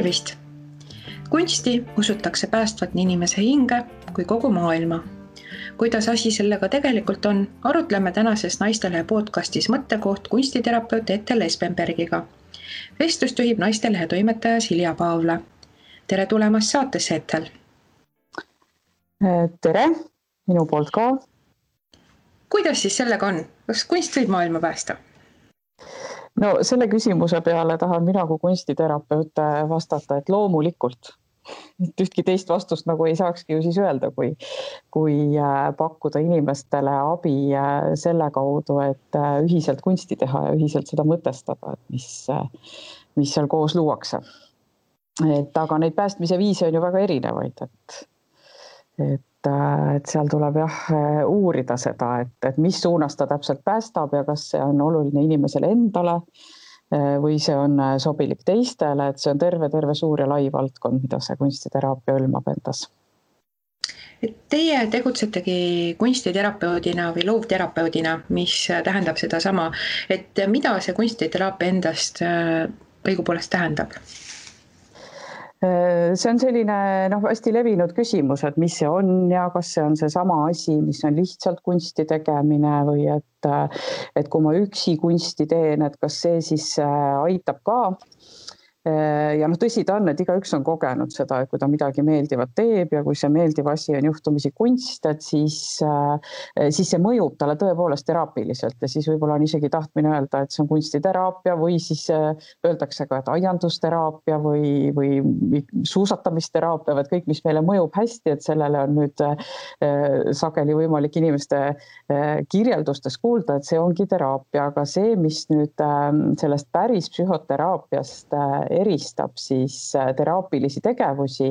Tervist! Kunsti usutakse päästvat nii inimese hinge kui kogu maailma. Kuidas asi sellega tegelikult on, arutleme tänases Naistelehe podcastis mõttekoht kunstiterapeut Ethel Espenbergiga. Vestlust juhib Naistelehe toimetaja Silja Paavla. Tere tulemast saatesse, Ethel! Tere, minu poolt ka. Kuidas siis sellega on? Kas kunst võib maailma päästa? No selle küsimuse peale tahan mina kui kunstiterapeut vastata, et loomulikult. Et ühtki teist vastust nagu ei saakski ju siis öelda, kui pakkuda inimestele abi selle kaudu, et ühiselt kunsti teha ja ühiselt seda mõtestada, et mis seal koos luuakse. Aga neid päästmise viise on ju väga erinevaid, et seal tuleb uurida seda, et mis suunas ta täpselt päästab ja kas see on oluline inimesele endale või see on sobilik teistele, et see on terve suur ja lai valdkond, mida see kunstiteraapia hõlmab endas. Teie tegutsetegi kunstiterapeudina või loovterapeudina, mis tähendab seda sama, et mida see kunstiteraapia endast õigupoolest tähendab? See on selline hästi levinud küsimus, et mis see on ja kas see on see sama asi, mis on lihtsalt kunsti tegemine või et kui ma üksi kunsti teen, et kas see siis aitab ka. Ja tõsi ta on, et igaüks on kogenud seda, et kui ta midagi meeldivat teeb ja kui see meeldiv asi on juhtumisi kunst, et siis see mõjub talle tõepoolest teraapiliselt ja siis võib-olla on isegi tahtmine öelda, et see on kunstiteraapia või siis öeldakse ka, et aiandusteraapia või suusatamisteraapia, või kõik, mis meile mõjub hästi, et sellele on nüüd sageli võimalik inimeste kirjeldustes kuulda, et see ongi teraapia, aga see, mis nüüd sellest päris psühhoteraapiast eristab siis teraapilisi tegevusi,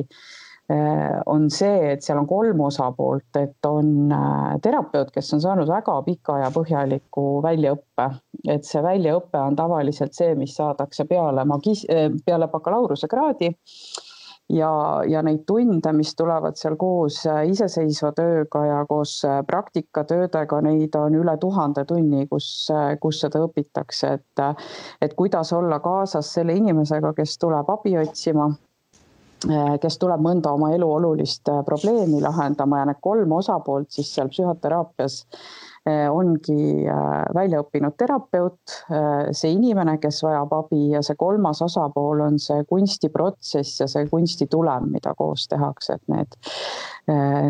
on see, et seal on 3 osapoolt, et on terapeut, kes on saanud väga pika ja põhjaliku väljaõppe. Et see väljaõppe on tavaliselt see, mis saadakse peale bakalaureuse kraadi ja neid tunde, mis tulevad seal koos iseseisva tööga ja koos praktikatöödega, neid on üle 1000 tunni, kus seda õpitakse, et kuidas olla kaasas selle inimesega, kes tuleb abi otsima, kes tuleb mõnda oma elu olulist probleemi lahendama ja need 3 osapoolt siis seal psühhoteraapias ongi välja õppinud terapeut, see inimene, kes vajab abi ja see 3. osapool on see kunstiprotsess ja see kunstitulem, mida koos tehakse, et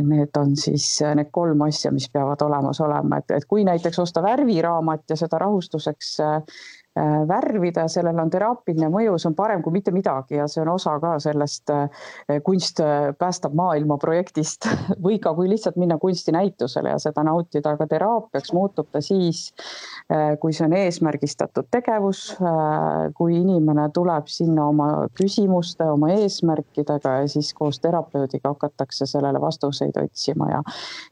need on siis need 3 asja, mis peavad olemas olema, et kui näiteks osta värviraamat ja seda rahustuseks värvida, sellel on teraapiline mõju, see on parem kui mitte midagi ja see on osa ka sellest kunst päästab maailma projektist või ka kui lihtsalt minna kunstinäitusele ja seda nautida, aga teraapiaks muutub ta siis, kui see on eesmärgistatud tegevus, kui inimene tuleb sinna oma küsimuste, oma eesmärkidega ja siis koos terapeudiga hakatakse sellele vastuseid otsima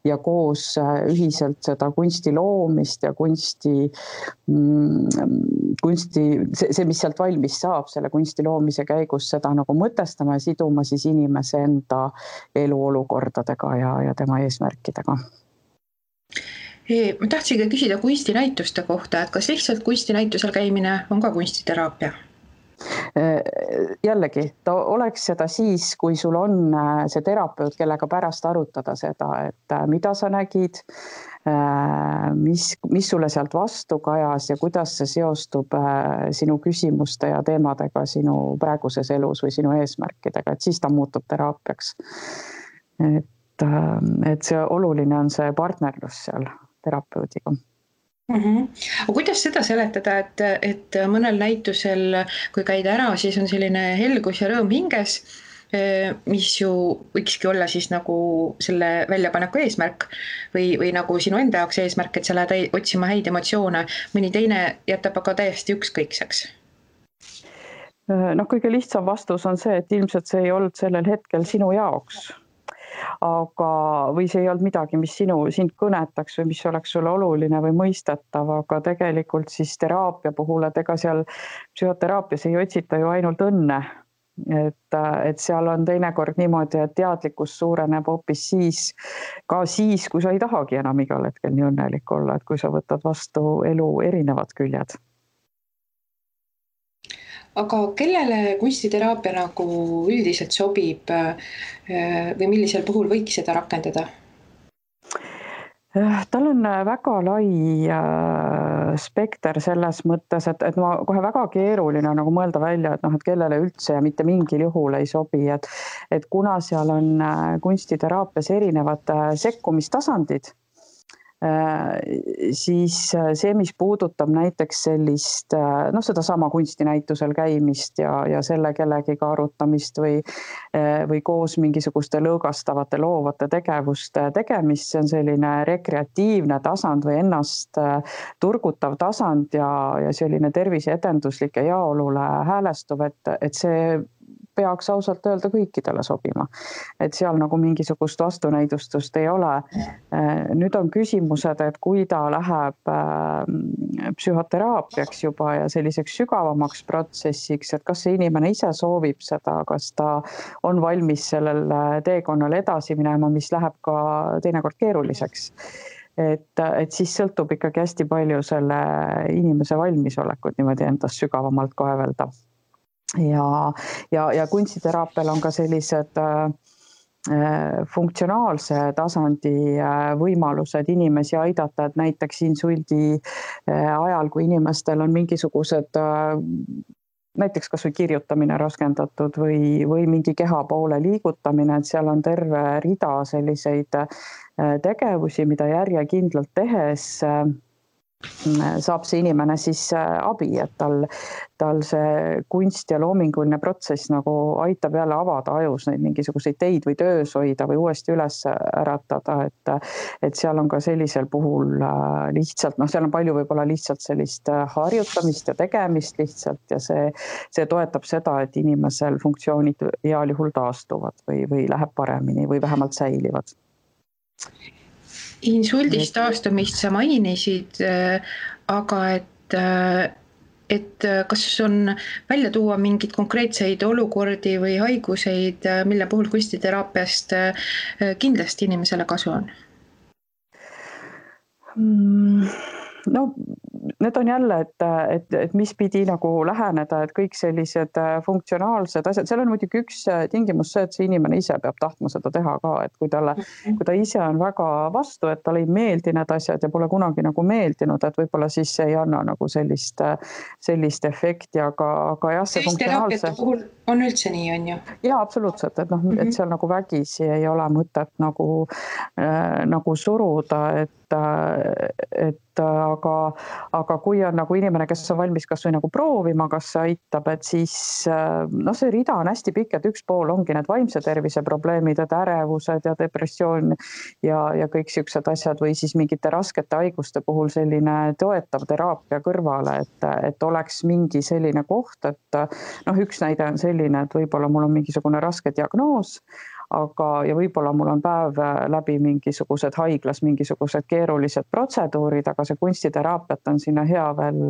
ja koos ühiselt seda kunsti loomist ja see, mis sealt valmis saab selle kunsti loomise käigus, seda nagu mõtestama ja siduma siis inimese enda eluolukordadega ja tema eesmärkidega. Ma tahtsin küsida kunstinäituste kohta, et kas lihtsalt kunstinäitusel käimine on ka kunstiteraapia? Jällegi, ta oleks seda siis, kui sul on see terapeut, kellega pärast arutada seda, et mida sa nägid, mis sulle sealt vastu kajas ja kuidas see seostub sinu küsimuste ja teemadega sinu praeguses elus või sinu eesmärkidega, et siis ta muutub teraapiaks. Et see oluline on see partnerlus seal terapeudiga. Aga kuidas seda seletada, et mõnel näitusel, kui käida ära, siis on selline helgus ja rõõm hinges, mis ju võikski olla siis nagu selle väljapaneku eesmärk või nagu sinu enda jaoks eesmärk, et sa lähed otsima häid emotsioone, mõni teine jätab aga täiesti ükskõikseks? Kõige lihtsam vastus on see, et ilmselt see ei olnud sellel hetkel sinu jaoks. Või see ei olnud midagi, mis sind kõnetaks või mis oleks sulle oluline või mõistetav, aga tegelikult siis teraapia puhul, et ega seal psühhoteraapias ei otsita ju ainult õnne. Et seal on teinekord niimoodi, et teadlikkus suureneb hoopis siis, kui sa ei tahagi enam igal hetkel nii õnnelik olla, et kui sa võtad vastu elu erinevad küljed. Aga kellele kunstiteraapia nagu üldiselt sobib või millisel puhul võiks seda rakendada? Tal on väga lai spekter selles mõttes, et ma kohe väga keeruline nagu mõelda välja, et kellele üldse ja mitte mingil juhul ei sobi, et kuna seal on kunstiteraapias erinevad sekkumistasandid, siis see, mis puudutab näiteks sellist, sedasama kunstinäitusel käimist ja selle kellegiga arutamist või koos mingisuguste lõõgastavate loovate tegevuste tegemist, see on selline rekreatiivne tasand või ennast turgutav tasand ja selline terviseedenduslik ja heaolule häälestuv, et see peaks ausalt öelda kõikidele sobima. Et seal nagu mingisugust vastunäidustust ei ole. Nüüd on küsimused, et kui ta läheb psühhoteraapiaks juba ja selliseks sügavamaks protsessiks, et kas see inimene ise soovib seda, kas ta on valmis sellel teekonnal edasi minema, mis läheb ka teinekord keeruliseks. Et siis sõltub ikkagi hästi palju selle inimese valmisolekut niimoodi endast sügavamalt kaevelda. Ja kunstiteraapial on ka sellised funktsionaalse tasandi võimalused inimesi aidata, et näiteks insuldi ajal, kui inimestel on mingisugused näiteks kas või kirjutamine raskendatud või mingi kehapoole liigutamine, et seal on terve rida selliseid tegevusi, mida järjekindlalt tehes saab see inimene siis abi, et tal see kunst ja loominguline protsess nagu aitab jälle avada ajus neid mingisuguseid teid või töös hoida või uuesti üles äratada, et seal on ka sellisel puhul lihtsalt, seal on palju võib-olla lihtsalt sellist harjutamist ja tegemist lihtsalt ja see toetab seda, et inimesel funktsioonid heal juhul taastuvad või läheb paremini või vähemalt säilivad. Insuldist taastumist sa mainisid, aga et kas on välja tuua mingid konkreetseid olukordi või haiguseid, mille puhul kunstiteraapiast kindlasti inimesele kasu on? No need on jälle, et mis pidi nagu läheneda, et kõik sellised funktsionaalsed asjad, seal on muidugi üks tingimus see, et see inimene ise peab tahtma seda teha ka, et kui ta ise on väga vastu, et talle ei meeldi need asjad ja pole kunagi nagu meeldinud, et võib-olla siis ei anna nagu sellist efekti, aga jah, see funktsionaalse... puhul on üldse nii, on ju? Jaa, absoluutselt, et seal nagu vägisi ei ole mõtet nagu suruda, aga kui on nagu inimene, kes on valmis kas või nagu proovima, kas see aitab, et siis see rida on hästi pikk, et üks pool ongi need vaimse tervise probleemid, et ärevused ja depressioon ja kõik siuksed asjad või siis mingite raskete haiguste puhul selline toetav teraapia kõrvale, et oleks mingi selline koht, et üks näide on selline, et võib-olla mul on mingisugune raske diagnoos, ja võib-olla mul on päev läbi mingisugused haiglas, mingisugused keerulised protseduurid, aga see kunstiteraapiat on sinna hea veel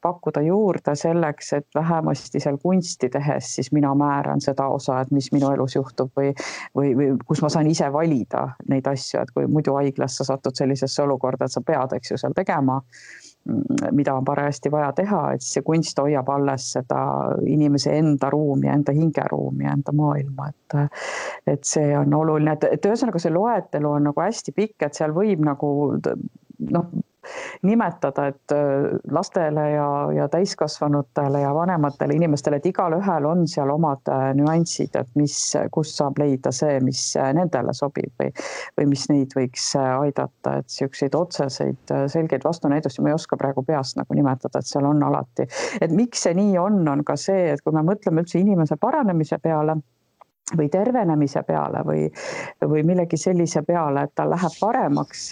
pakkuda juurde selleks, et vähemasti seal kunsti tehes siis mina määran seda osa, et mis minu elus juhtub või kus ma saan ise valida neid asju, et kui muidu haiglas sa satud sellisesse olukorda, et sa pead, eks ju, seal tegema, mida on parajasti vaja teha, et see kunst hoiab alles seda inimese enda ruumi, enda hingeruumi, enda maailma, et see on oluline, et ühesõnaga see loetelu on nagu hästi pikk, et seal võib nagu nimetada, et lastele ja täiskasvanutele ja vanematele inimestele, et igal ühel on seal omad nüansid, et kus saab leida see, mis nendele sobib või mis neid võiks aidata, et siukseid otseseid selgeid vastunäidusi ma ei oska praegu peast nagu nimetada, et seal on alati. Et miks see nii on ka see, et kui me mõtleme üldse inimese paranemise peale või tervenemise peale või millegi sellise peale, et ta läheb paremaks,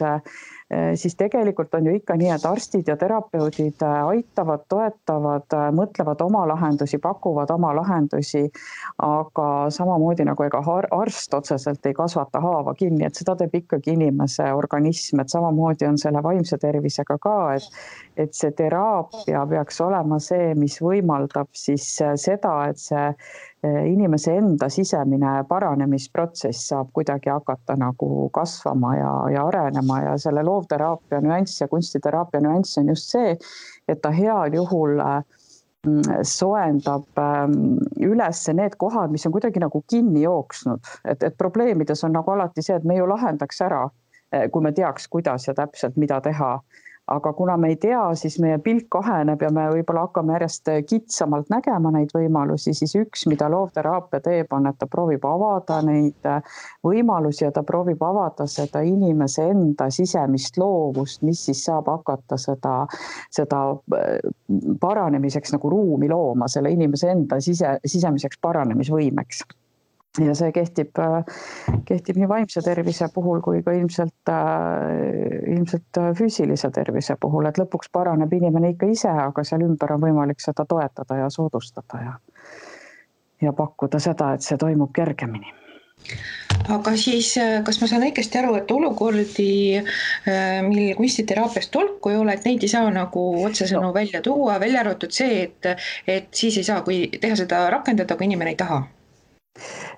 siis tegelikult on ju ikka nii, et arstid ja terapeudid aitavad, toetavad, mõtlevad oma lahendusi, pakuvad oma lahendusi, aga samamoodi nagu ega arst otseselt ei kasvata haava kinni, et seda teeb ikkagi inimese organism, et samamoodi on selle vaimse tervisega ka, et see teraapia peaks olema see, mis võimaldab siis seda, et see inimese enda sisemine paranemisprotsess saab kuidagi hakata nagu kasvama ja arenema ja selle loovteraapia nüanss ja kunstiteraapia nüanss on just see, et ta heal juhul soendab üles need kohad, mis on kuidagi nagu kinni jooksnud, et probleemides on nagu alati see, et me ju lahendaks ära, kui me teaks, kuidas ja täpselt mida teha. Aga kuna me ei tea, siis meie pilk kaheneb ja me võib-olla hakkame järjest kitsamalt nägema neid võimalusi, siis üks, mida loovteraapia teeb, on, et ta proovib avada neid võimalusi ja ta proovib avada seda inimese enda sisemist loovust, mis siis saab hakata seda paranemiseks nagu ruumi looma, selle inimese enda sisemiseks paranemisvõimeks. Ja see kehtib nii vaimse tervise puhul kui ka ilmselt füüsilise tervise puhul, et lõpuks paraneb inimene ikka ise, aga seal ümber on võimalik seda toetada ja soodustada ja pakkuda seda, et see toimub kergemini. Aga siis, kas ma saan õigesti aru, et olukordi, mil kunstiteraapiast tolku ei ole, et neid ei saa nagu otsesõnu välja tuua, välja arvatud see, et siis ei saa teha seda rakendada, kui inimene ei taha?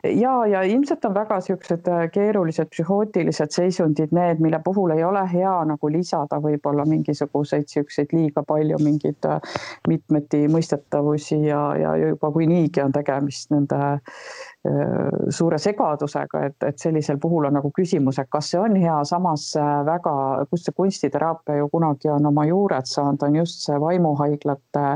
Ja ilmselt on väga siuksed keerulised psühhootilised seisundid need, mille puhul ei ole hea nagu lisada võib-olla mingisuguseid siukseid liiga palju mingeid mitmeti mõistetavusi ja juba kui niigi on tegemist nende suure segadusega, et sellisel puhul on nagu küsimus, et kas see on hea, samas väga, kus see kunstiteraapia ju kunagi on oma juured saanud, on just see vaimuhaiglate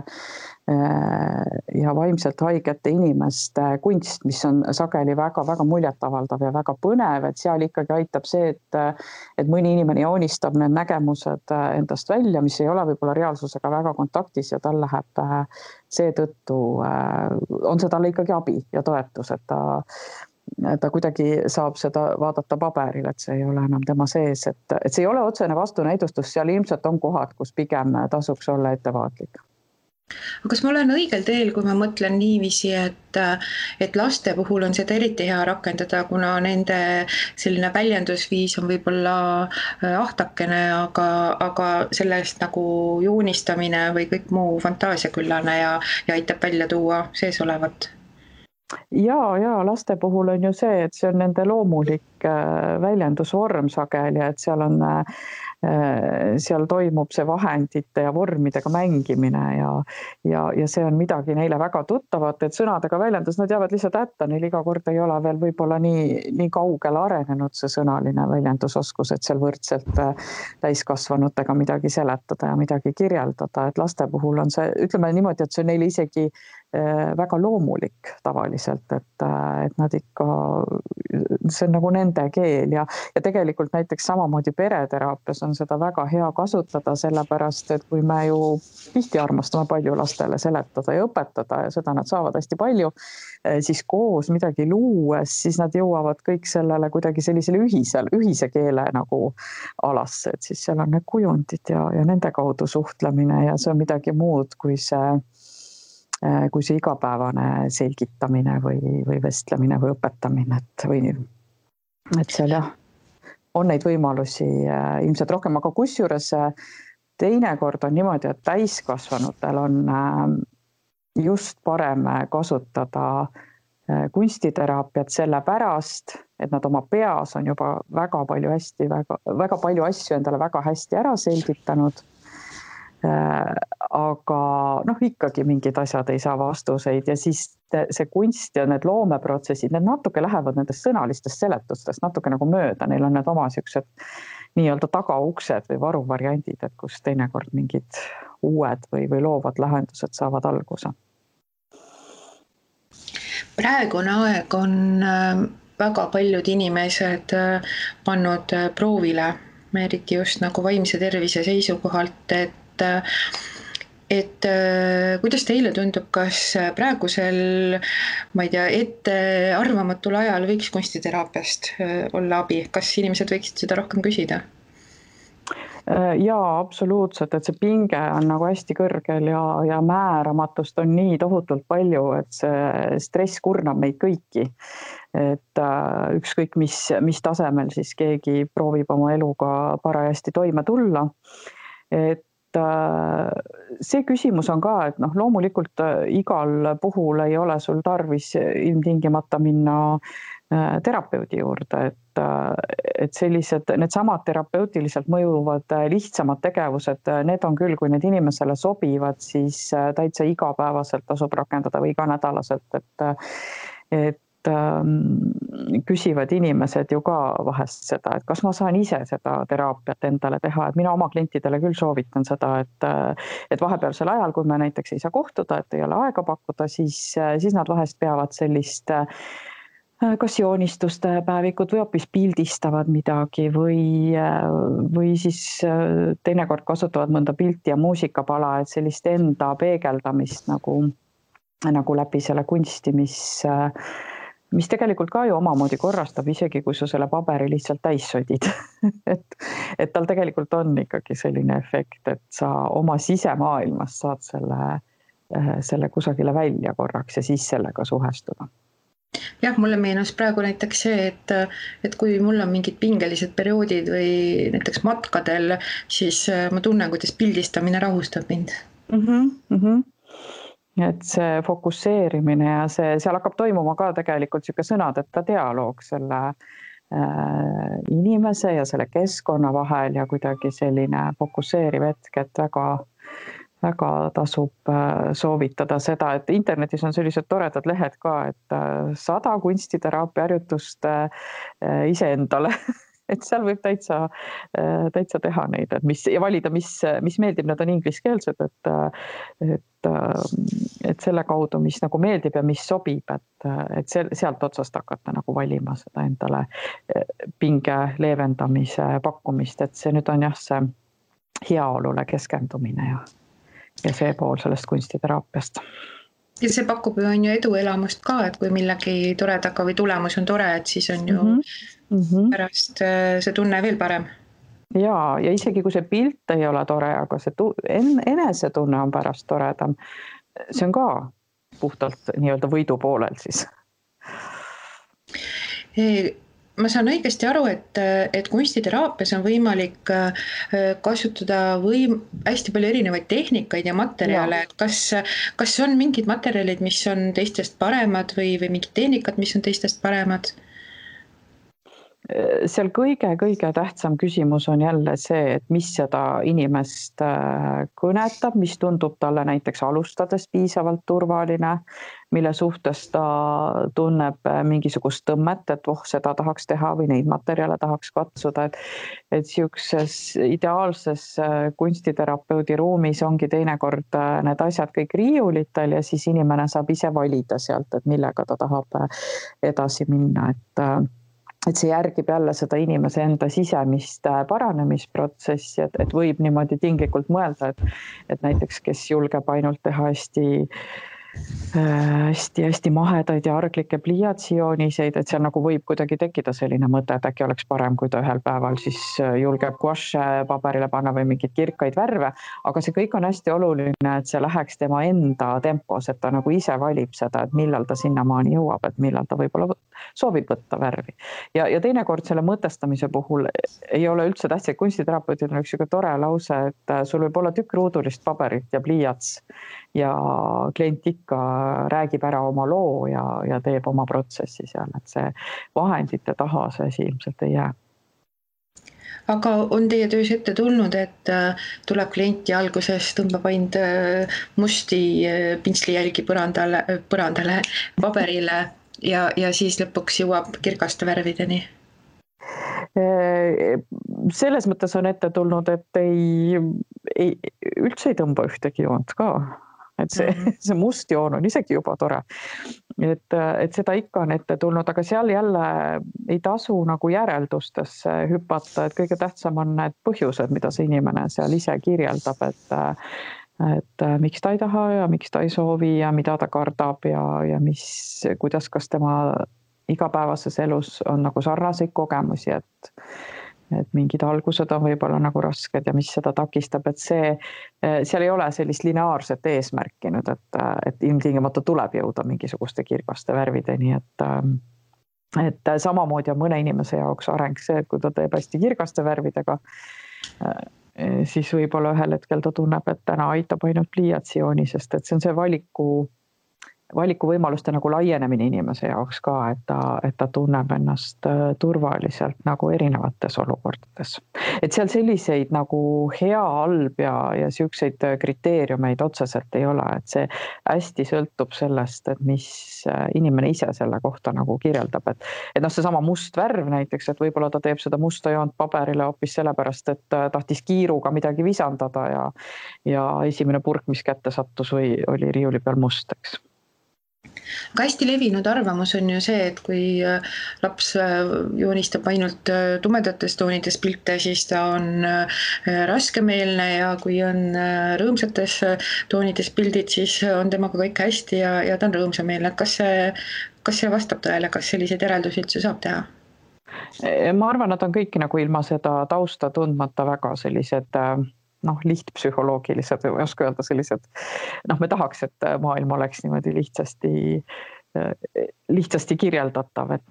ja vaimselt haigete inimeste kunst, mis on sageli väga-väga muljetavaldav ja väga põnev, et seal ikkagi aitab see, et mõni inimene joonistab need nägemused endast välja, mis ei ole võib-olla reaalsusega väga kontaktis ja tal läheb seetõttu, on see talle ikkagi abi ja toetus, et ta kuidagi saab seda vaadata paberil, et see ei ole enam tema sees, et see ei ole otsene vastunäidustus, seal ilmselt on kohad, kus pigem tasuks olla ettevaatlik. Aga kas ma olen õigel teel, kui ma mõtlen niiviisi, et laste puhul on seda eriti hea rakendada, kuna nende selline väljendusviis on võib-olla ahtakene, aga sellest nagu joonistamine või kõik muu fantaasiaküllane ja aitab välja tuua sees olevat? Ja laste puhul on ju see, et see on nende loomulik väljendusvorm sageli, et seal toimub see vahendite ja vormidega mängimine ja see on midagi neile väga tuttavat, et sõnadega väljendus, nad jäävad lihtsalt hätta, neil iga kord ei ole veel võib-olla nii kaugele arenenud see sõnaline väljendusoskus, et seal võrdselt täiskasvanutega midagi seletada ja midagi kirjeldada, et laste puhul on see, ütleme niimoodi, et see on neile isegi väga loomulik tavaliselt, et nad ikka, see on nagu nende keel ja tegelikult näiteks samamoodi pereteraapias on seda väga hea kasutada, sellepärast, et kui me ju tihti armastame palju lastele seletada ja õpetada ja seda nad saavad hästi palju, siis koos midagi luues, siis nad jõuavad kõik sellele kuidagi sellisele ühise keele nagu alasse, et siis seal on need kujundid ja nende kaudu suhtlemine ja see on midagi muud kui see igapäevane selgitamine või vestlemine või õpetamine, et seal jah, on neid võimalusi ilmselt rohkem, aga kusjuures teinekord on niimoodi, et täiskasvanutel on just parem kasutada kunstiteraapiat sellepärast, et nad oma peas on juba väga palju asju endale väga hästi ära selgitanud. Aga ikkagi mingid asjad ei saa vastuseid ja siis see kunst ja need loomeprotsessid, need natuke lähevad nendest sõnalistest seletustest natuke nagu mööda, neil on need oma siuksed nii-öelda tagauksed või varuvariandid, et kus teinekord mingid uued või loovad lahendused saavad alguse. Praegune aeg on väga paljud inimesed pannud proovile, eriti just nagu vaimse tervise seisukohalt, et kuidas teile tundub, kas praegusel, ma ei tea, ettearvamatul ajal võiks kunstiteraapiast olla abi, kas inimesed võiksid seda rohkem küsida? Jaa, absoluutselt, et see pinge on nagu hästi kõrgel ja määramatust on nii tohutult palju, et see stress kurnab meid kõiki. Et ükskõik mis tasemel siis keegi proovib oma eluga parajasti toime tulla. Et see küsimus on ka, et loomulikult igal puhul ei ole sul tarvis ilmtingimata minna terapeudi juurde, et sellised, need samad terapeutiliselt mõjuvad lihtsamad tegevused, need on küll, kui need inimesele sobivad, siis täitsa igapäevaselt tasub rakendada või iganädalaselt, et küsivad inimesed ju ka vahest seda, et kas ma saan ise seda teraapiat endale teha, et mina oma klientidele küll soovitan seda, et vahepealsel ajal, kui me näiteks ei saa kohtuda, et ei ole aega pakkuda, siis nad vahest peavad sellist kas joonistuste päevikut või hoopis pildistavad midagi või siis teinekord kasutavad mõnda pilti ja muusikapala, et sellist enda peegeldamist nagu läbi selle kunsti, mis tegelikult ka ju omamoodi korrastab, isegi kui sa selle paberi lihtsalt täis sodid. et tal tegelikult on ikkagi selline efekt, et sa oma sisemaailmas saad selle kusagile välja korraks ja siis sellega suhestuda. Jah, mulle meenus praegu näiteks see, et kui mul on mingid pingelised perioodid või näiteks matkadel, siis ma tunnen, kuidas pildistamine rahustab mind. Et see fokusseerimine ja seal hakkab toimuma ka tegelikult siuke sõnadeta dialoog selle inimese ja selle keskkonna vahel ja kuidagi selline fokusseeriv hetk, et väga tasub soovitada seda, et internetis on sellised toredad lehed ka, et 100 kunstiteraapia harjutust iseendale, et seal võib täitsa teha neid, ja valida, mis meeldib, need on ingliskeelsed, et selle kaudu, mis nagu meeldib ja mis sobib, et sealt otsast hakata nagu valima seda endale pinge leevendamise pakkumist, et see nüüd on jah, see heaolule keskendumine ja see pool sellest kunstiteraapiast. Ja see pakub ju on ju eduelamust ka, et kui millegi toredaga või tulemus on tore, et siis on ju pärast see tunne veel parem. Ja isegi kui see pilt ei ole tore, aga see enesetunne on pärast toredam, see on ka puhtalt nii-öelda võidu poolel siis. Ma saan õigesti aru, et kunstiteraapias on võimalik kasutada hästi palju erinevaid tehnikaid ja materjale, et kas on mingid materjalid, mis on teistest paremad või mingid tehnikad, mis on teistest paremad? Seal kõige tähtsam küsimus on jälle see, et mis seda inimest kõnetab, mis tundub talle näiteks alustades piisavalt turvaline, mille suhtes ta tunneb mingisugust tõmmet, et seda tahaks teha või neid materjale tahaks katsuda, et siukses ideaalses kunstiterapeudi ruumis ongi teinekord need asjad kõik riiulitel ja siis inimene saab ise valida sealt, et millega ta tahab edasi minna, et see järgib jälle seda inimese enda sisemist paranemisprotsessi, et võib niimoodi tinglikult mõelda, et näiteks kes julgeb ainult teha hästi mahedaid ja arglikke pliiatsijooniseid, et seal nagu võib kuidagi tekkida selline mõte, et äkki oleks parem, kui ta ühel päeval siis julgeb guaše paberile panna või mingeid kirkaid värve, aga see kõik on hästi oluline, et see läheks tema enda tempos, et ta nagu ise valib seda, et millal ta sinnamaani jõuab, et millal ta võib-olla soovib võtta värvi. Ja teinekord selle mõtestamise puhul ei ole üldse tähtsad, kunstiterapeutid on üks tore lause, et sul võib olla tükk ruudulist paberit ja pliiats ja klient ikka räägib ära oma loo ja teeb oma protsessi seal, et see vahendite taha see asi ilmselt ei jää. Aga on teie töös ette tulnud, et tuleb klient ja alguses tõmbab ainult musti pintslijälgi põrandale, paberile ja siis lõpuks jõuab kirgaste värvideni? Selles mõttes on ette tulnud, et üldse ei tõmba ühtegi joont ka. Et see must joon on isegi juba tore, et seda ikka on ette tulnud, aga seal jälle ei tasu nagu järeldustesse hüpata, et kõige tähtsam on need põhjused, mida see inimene seal ise kirjeldab, et miks ta ei taha ja miks ta ei soovi ja mida ta kardab ja kuidas, kas tema igapäevases elus on nagu sarnaseid kogemusi, et mingid algused on võib-olla nagu rasked ja mis seda takistab, et seal ei ole sellist lineaarset eesmärki nüüd, et ilmtingimata tuleb jõuda mingisuguste kirgaste värvideni, et samamoodi on mõne inimese jaoks areng see, et kui ta teeb hästi kirgaste värvidega, siis võib-olla ühel hetkel ta tunneb, et täna aitab ainult pliiatsijooni, sest et see on see valikuvõimaluste nagu laienemine inimese jaoks ka, et ta tunneb ennast turvaliselt nagu erinevates olukordades. Et seal selliseid nagu hea, halb ja siukseid kriteeriumeid otseselt ei ole, et see hästi sõltub sellest, et mis inimene ise selle kohta nagu kirjeldab, et noh, seesama must värv näiteks, et võib-olla ta teeb seda musta joont paberile hoopis sellepärast, et tahtis kiiruga midagi visandada ja esimene purk, mis kätte sattus või oli riiuli peal must, eks. Aga hästi levinud arvamus on ju see, et kui laps joonistab ainult tumedates toonides pilte, siis ta on raskemeelne ja kui on rõõmsates toonides pildid, siis on temaga kõik hästi ja ta on rõõmsameelne. Kas see vastab tõele, kas selliseid järeldusi üldse saab teha? Ma arvan, et on kõiki nagu ilma seda tausta tundmata väga sellised lihtpsühholoogilised, ei oska öelda sellised, me tahaks, et maailm oleks niimoodi lihtsasti kirjeldatav, et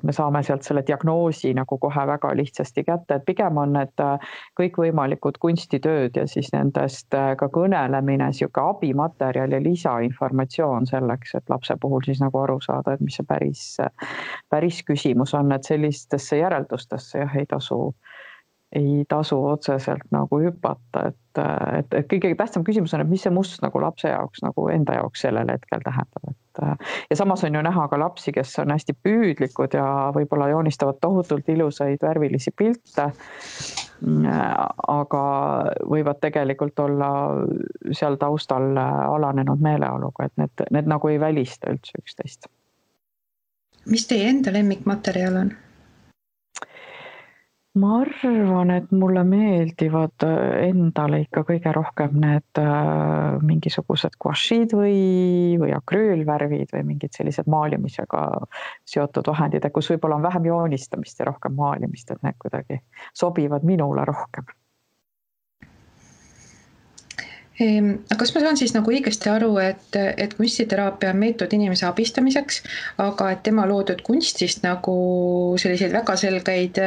me saame sealt selle diagnoosi nagu kohe väga lihtsasti kätte, et pigem on need kõikvõimalikud kunstitööd ja siis nendest ka kõnelemine, siuke abimaterjal ja lisainformatsioon selleks, et lapse puhul siis nagu aru saada, et mis see päris küsimus on, et sellistesse järeldustesse ei tasu otseselt nagu hüpata, et kõige tähtsam küsimus on, et mis see must nagu lapse jaoks nagu enda jaoks sellel hetkel tähendab, ja samas on ju näha ka lapsi, kes on hästi püüdlikud ja võib-olla joonistavad tohutult ilusaid värvilisi pilte, aga võivad tegelikult olla seal taustal alanenud meeleoluga, et need nagu ei välista üldse üksteist. Mis teie enda lemmikmaterjal on? Ma arvan, et mulle meeldivad endale ikka kõige rohkem need mingisugused guašid või akrüülvärvid või mingid sellised maalimisega seotud vahendid, kus võib-olla on vähem joonistamist ja rohkem maalimist, et need kuidagi sobivad minule rohkem. Aga kas ma saan siis nagu õigesti aru, et kunstiteraapia on meetod inimese abistamiseks, aga et tema loodud kunstist nagu selliseid väga selgeid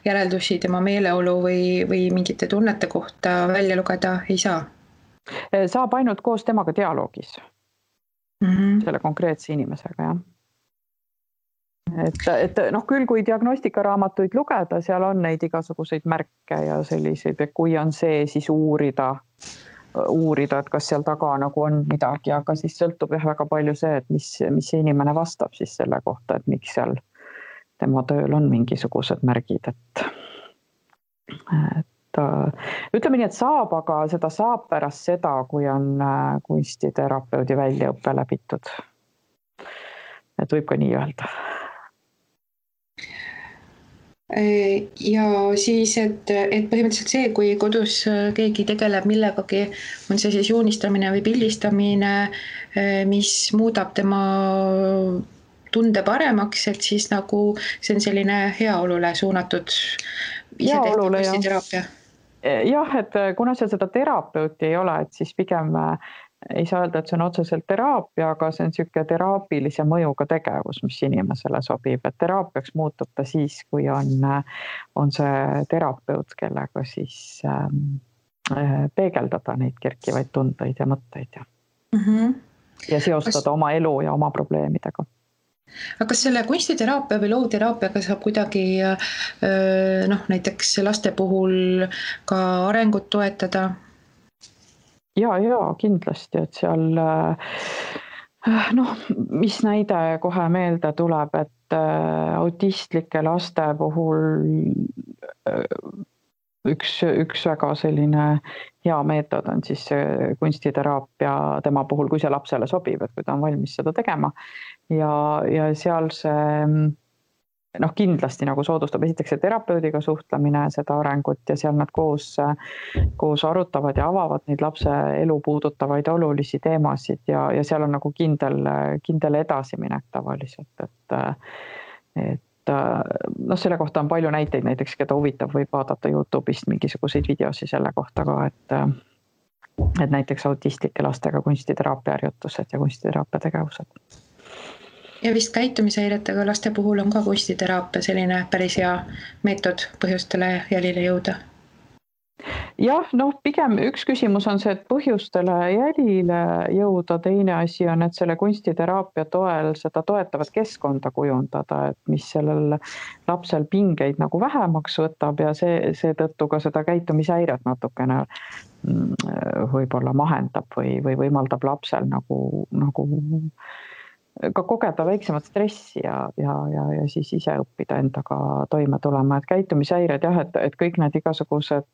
järeldusi tema meeleolu või mingite tunnete kohta välja lugeda ei saa? Saab ainult koos temaga dialoogis selle konkreetse inimesega, jah. Et küll, kui diagnostikaraamatuid lugeda, seal on neid igasuguseid märke ja selliseid, et kui on see, siis uurida, et kas seal taga nagu on midagi, aga siis sõltub väga palju see, et mis see inimene vastab siis selle kohta, et miks seal tema tööl on mingisugused märgid, et ütleme nii, et saab, aga seda saab pärast seda, kui on kunstiterapeudi väljaõppe läbitud. Et võib ka nii öelda. Ja siis, et põhimõtteliselt see, kui kodus keegi tegeleb millegagi, on see siis joonistamine või pildistamine, mis muudab tema tunde paremaks, et siis nagu see on selline heaolule suunatud isetehtud kunstiteraapia. Jah, et kuna seal seda terapeuti ei ole, et siis pigem ei saa öelda, et see on otseselt teraapia, aga see on siuke teraapilise mõjuga tegevus, mis inimesele sobib, et teraapiaks muutub ta siis, kui on see terapeut, kellega siis peegeldada neid kerkivaid tundeid ja mõtteid ja seostada oma elu ja oma probleemidega. Aga kas selle kunstiteraapia või loovteraapiaga saab kuidagi näiteks laste puhul ka arengut toetada? Ja, kindlasti, et seal, mis näide kohe meelde tuleb, et autistlike laste puhul üks väga selline hea meetod on siis kunstiteraapia tema puhul, kui see lapsele sobib, et kui ta on valmis seda tegema ja seal see kindlasti nagu soodustab esiteks see terapeudiga suhtlemine, seda arengut ja seal nad koos arutavad ja avavad neid lapse elu puudutavaid olulisi teemasid ja seal on nagu kindel edasiminek tavaliselt, et selle kohta on palju näiteid, näiteks keda huvitab, võib vaadata YouTube'ist mingisuguseid videosi selle kohta ka, et näiteks autistlike lastega kunstiteraapia harjutused ja kunstiteraapia tegevused. Ja vist käitumishäiretega laste puhul on ka kunstiteraapia selline päris hea meetod põhjustele jälile jõuda. Jah, pigem üks küsimus on see, et põhjustele jälile jõuda, teine asi on, et selle kunstiteraapia toel seda toetavat keskkonda kujundada, et mis sellel lapsel pingeid nagu vähemaks võtab ja seetõttu ka seda käitumishäiret natukene võib-olla mahendab või võimaldab lapsel nagu ka kogeda väiksemat stressi ja siis ise õppida endaga toime tulema, et käitumishäired jah, et kõik need igasugused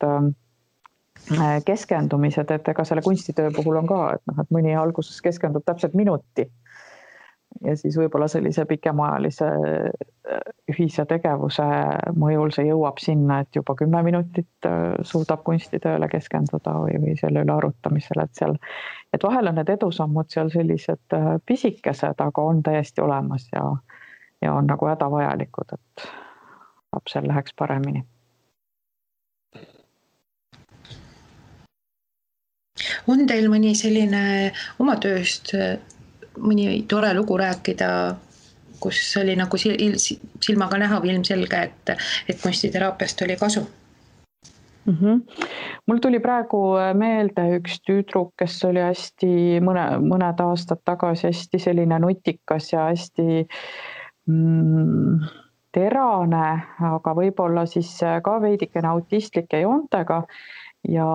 keskendumised, et ega selle kunstitöö puhul on ka, et mõni alguses keskendub täpselt minuti ja siis võib-olla sellise pikemaajalise ühise tegevuse mõjul see jõuab sinna, et juba 10 minutit suudab kunstitööle keskenduda või selle üle arutamisele, et vahel on need edusammud seal sellised pisikesed, aga on täiesti olemas ja on nagu hädavajalikud, et lapsel läheks paremini. On teil mõni selline oma tööst mõni tore lugu rääkida, kus oli nagu silmaga näha või ilmselge, et kunstiteraapiast oli kasu? Mul tuli praegu meelde üks tüdruk, kes oli hästi mõned aastad tagasi hästi selline nutikas ja hästi terane, aga võib-olla siis ka veidikene autistlike joontega. Ja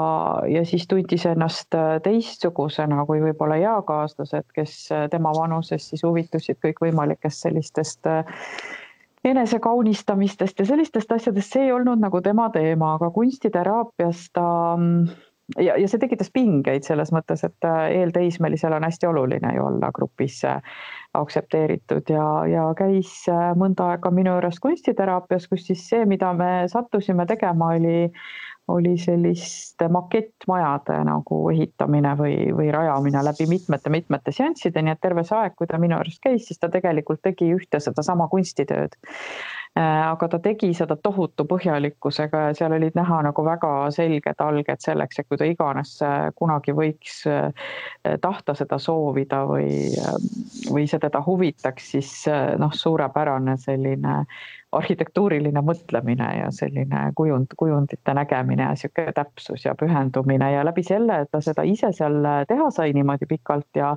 siis tundis ennast teistsugusena kui võib-olla eakaaslased, kes tema vanuses siis huvitusid kõik võimalikest sellistest enesekaunistamistest ja sellistest asjadest. See ei olnud nagu tema teema, aga kunstiteraapias ja see tekitas pingeid selles mõttes, et eelteismelisel on hästi oluline ju olla grupis aktsepteeritud ja käis mõnda aega minu juures kunstiteraapias, kus siis see, mida me sattusime tegema, oli selliste makettmajade nagu ehitamine või rajamine läbi mitmete seansside, nii et terve see aeg, kui ta minu juures käis, siis ta tegelikult tegi ühte seda sama kunstitööd. Aga ta tegi seda tohutu põhjalikkusega ja seal olid näha nagu väga selged alged selleks, et kui ta iganes kunagi võiks tahta seda soovida või see teda huvitaks, siis suurepärane selline arhitektuuriline mõtlemine ja selline kujundite nägemine ja sihuke täpsus ja pühendumine ja läbi selle, et ta seda ise seal teha sai niimoodi pikalt ja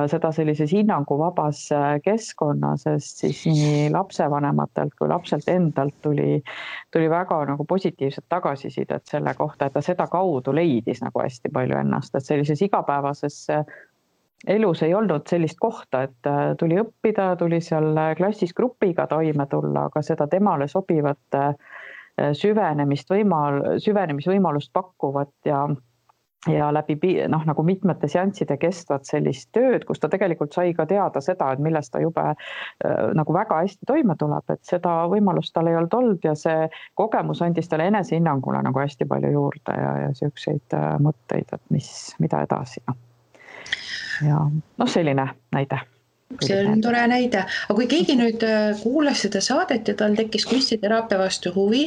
seda sellises hinnanguvabas keskkonnas, sest siis nii lapsevanematelt kui lapselt endalt tuli väga nagu positiivset tagasisidet selle kohta, et ta seda kaudu leidis nagu hästi palju ennast, et sellises igapäevases elus ei olnud sellist kohta, et tuli õppida, tuli seal klassis grupiga toime tulla, aga seda temale sobivat süvenemisvõimalust pakkuvat ja läbi nagu mitmete seansside kestvat sellist tööd, kus ta tegelikult sai ka teada seda, et millest ta jube nagu väga hästi toime tuleb, et seda võimalust tal ei olnud ja see kogemus andis talle enesehinnangule nagu hästi palju juurde ja siukseid mõtteid, et mida edasi. Ja selline näide. See on tore näide. Aga kui keegi nüüd kuulas seda saadet ja tal tekkis kunstiteraapia vastu huvi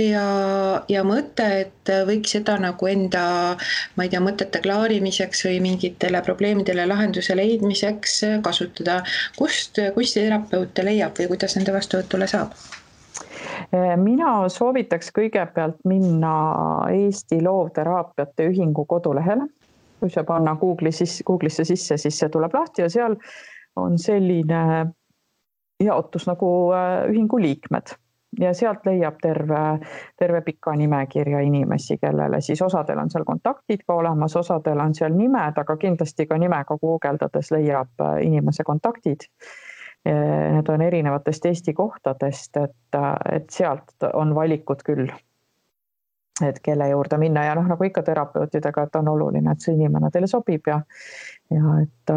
ja mõte, et võiks seda nagu enda, ma ei tea, mõtete klaarimiseks või mingitele probleemidele lahenduse leidmiseks kasutada, kust kunstiterapeute leiab või kuidas nende vastuvõtule saab? Mina soovitaks kõigepealt minna Eesti Loovteraapiate Ühingu kodulehele. Kui see panna Google'isse sisse, siis see tuleb lahti ja seal on selline jaotus nagu ühingu liikmed ja sealt leiab terve pika nimekirja inimesi, kellele siis osadel on seal kontaktid ka olemas, osadel on seal nimed, aga kindlasti ka nimega guugeldades leiab inimese kontaktid. Need on erinevatest Eesti kohtadest, et sealt on valikud küll, et kelle juurde minna ja nagu ikka terapeutidega, et on oluline, et see inimene teile sobib ja et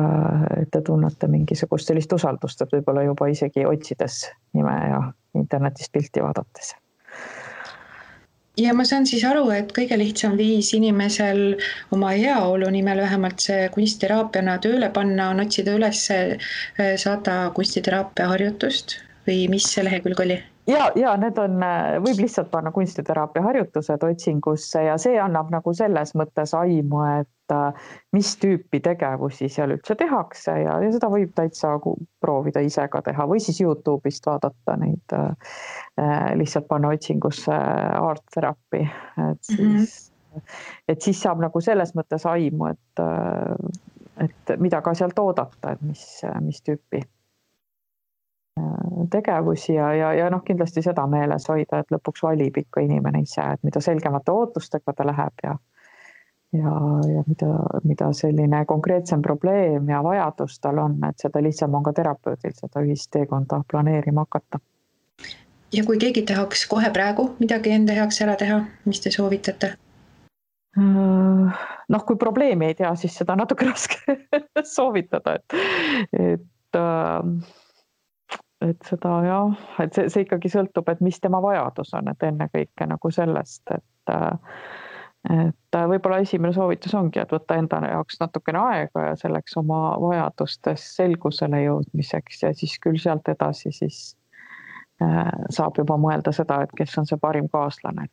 te tunnete mingisugust sellist usaldust, et võib-olla juba isegi otsides nime ja internetist pilti vaadates. Ja ma saan siis aru, et kõige lihtsam viis inimesel oma heaolu nimel vähemalt see kunstiteraapiana tööle panna on otsida üles 100 kunstiteraapia harjutust või mis see lehekülg oli? Ja need võib lihtsalt panna kunstiteraapia harjutused otsingusse ja see annab nagu selles mõttes aimu, et mis tüüpi tegevusi seal üldse tehakse ja seda võib täitsa proovida ise ka teha või siis YouTube'ist vaadata neid, lihtsalt panna otsingusse art therapy, et siis et siis saab nagu selles mõttes aimu, et mida ka sealt oodata, et mis tüüpi tegevusi ja noh, kindlasti seda meeles hoida, et lõpuks valib ikka inimene ise, et mida selgemate ootustega ta läheb ja mida selline konkreetsem probleem ja vajadus tal on, et seda lihtsam on ka terapeudil seda ühist teekonda planeerima hakata. Ja kui keegi tahaks kohe praegu midagi enda heaks ära teha, mis te soovitate? Noh, kui probleemi ei tea, siis seda natuke raske soovitada, et seda jah, et see ikkagi sõltub, et mis tema vajadus on, et enne kõike nagu sellest, et võib-olla esimene soovitus ongi, et võtta enda jaoks natukene aega ja selleks oma vajadustes selgusele jõudmiseks ja siis küll sealt edasi siis saab juba mõelda seda, et kes on see parim kaaslane,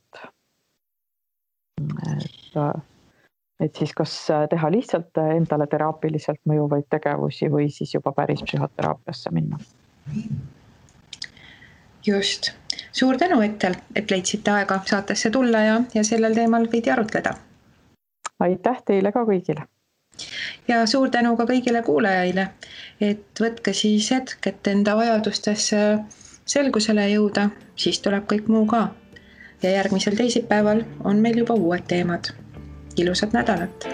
et siis kas teha lihtsalt endale teraapiliselt mõjuvaid tegevusi või siis juba päris psühhoteraapiasse minna. Just. Suur tänu, et leidsite aega saatesse tulla ja sellel teemal veidi arutleda. Aitäh teile ka kõigile. Ja suur tänu ka kõigile kuulajaile, et võtke siis hetk, et enda vajadustes selgusele jõuda, siis tuleb kõik muu ka. Ja järgmisel teisipäeval on meil juba uued teemad. Ilusat nädalat!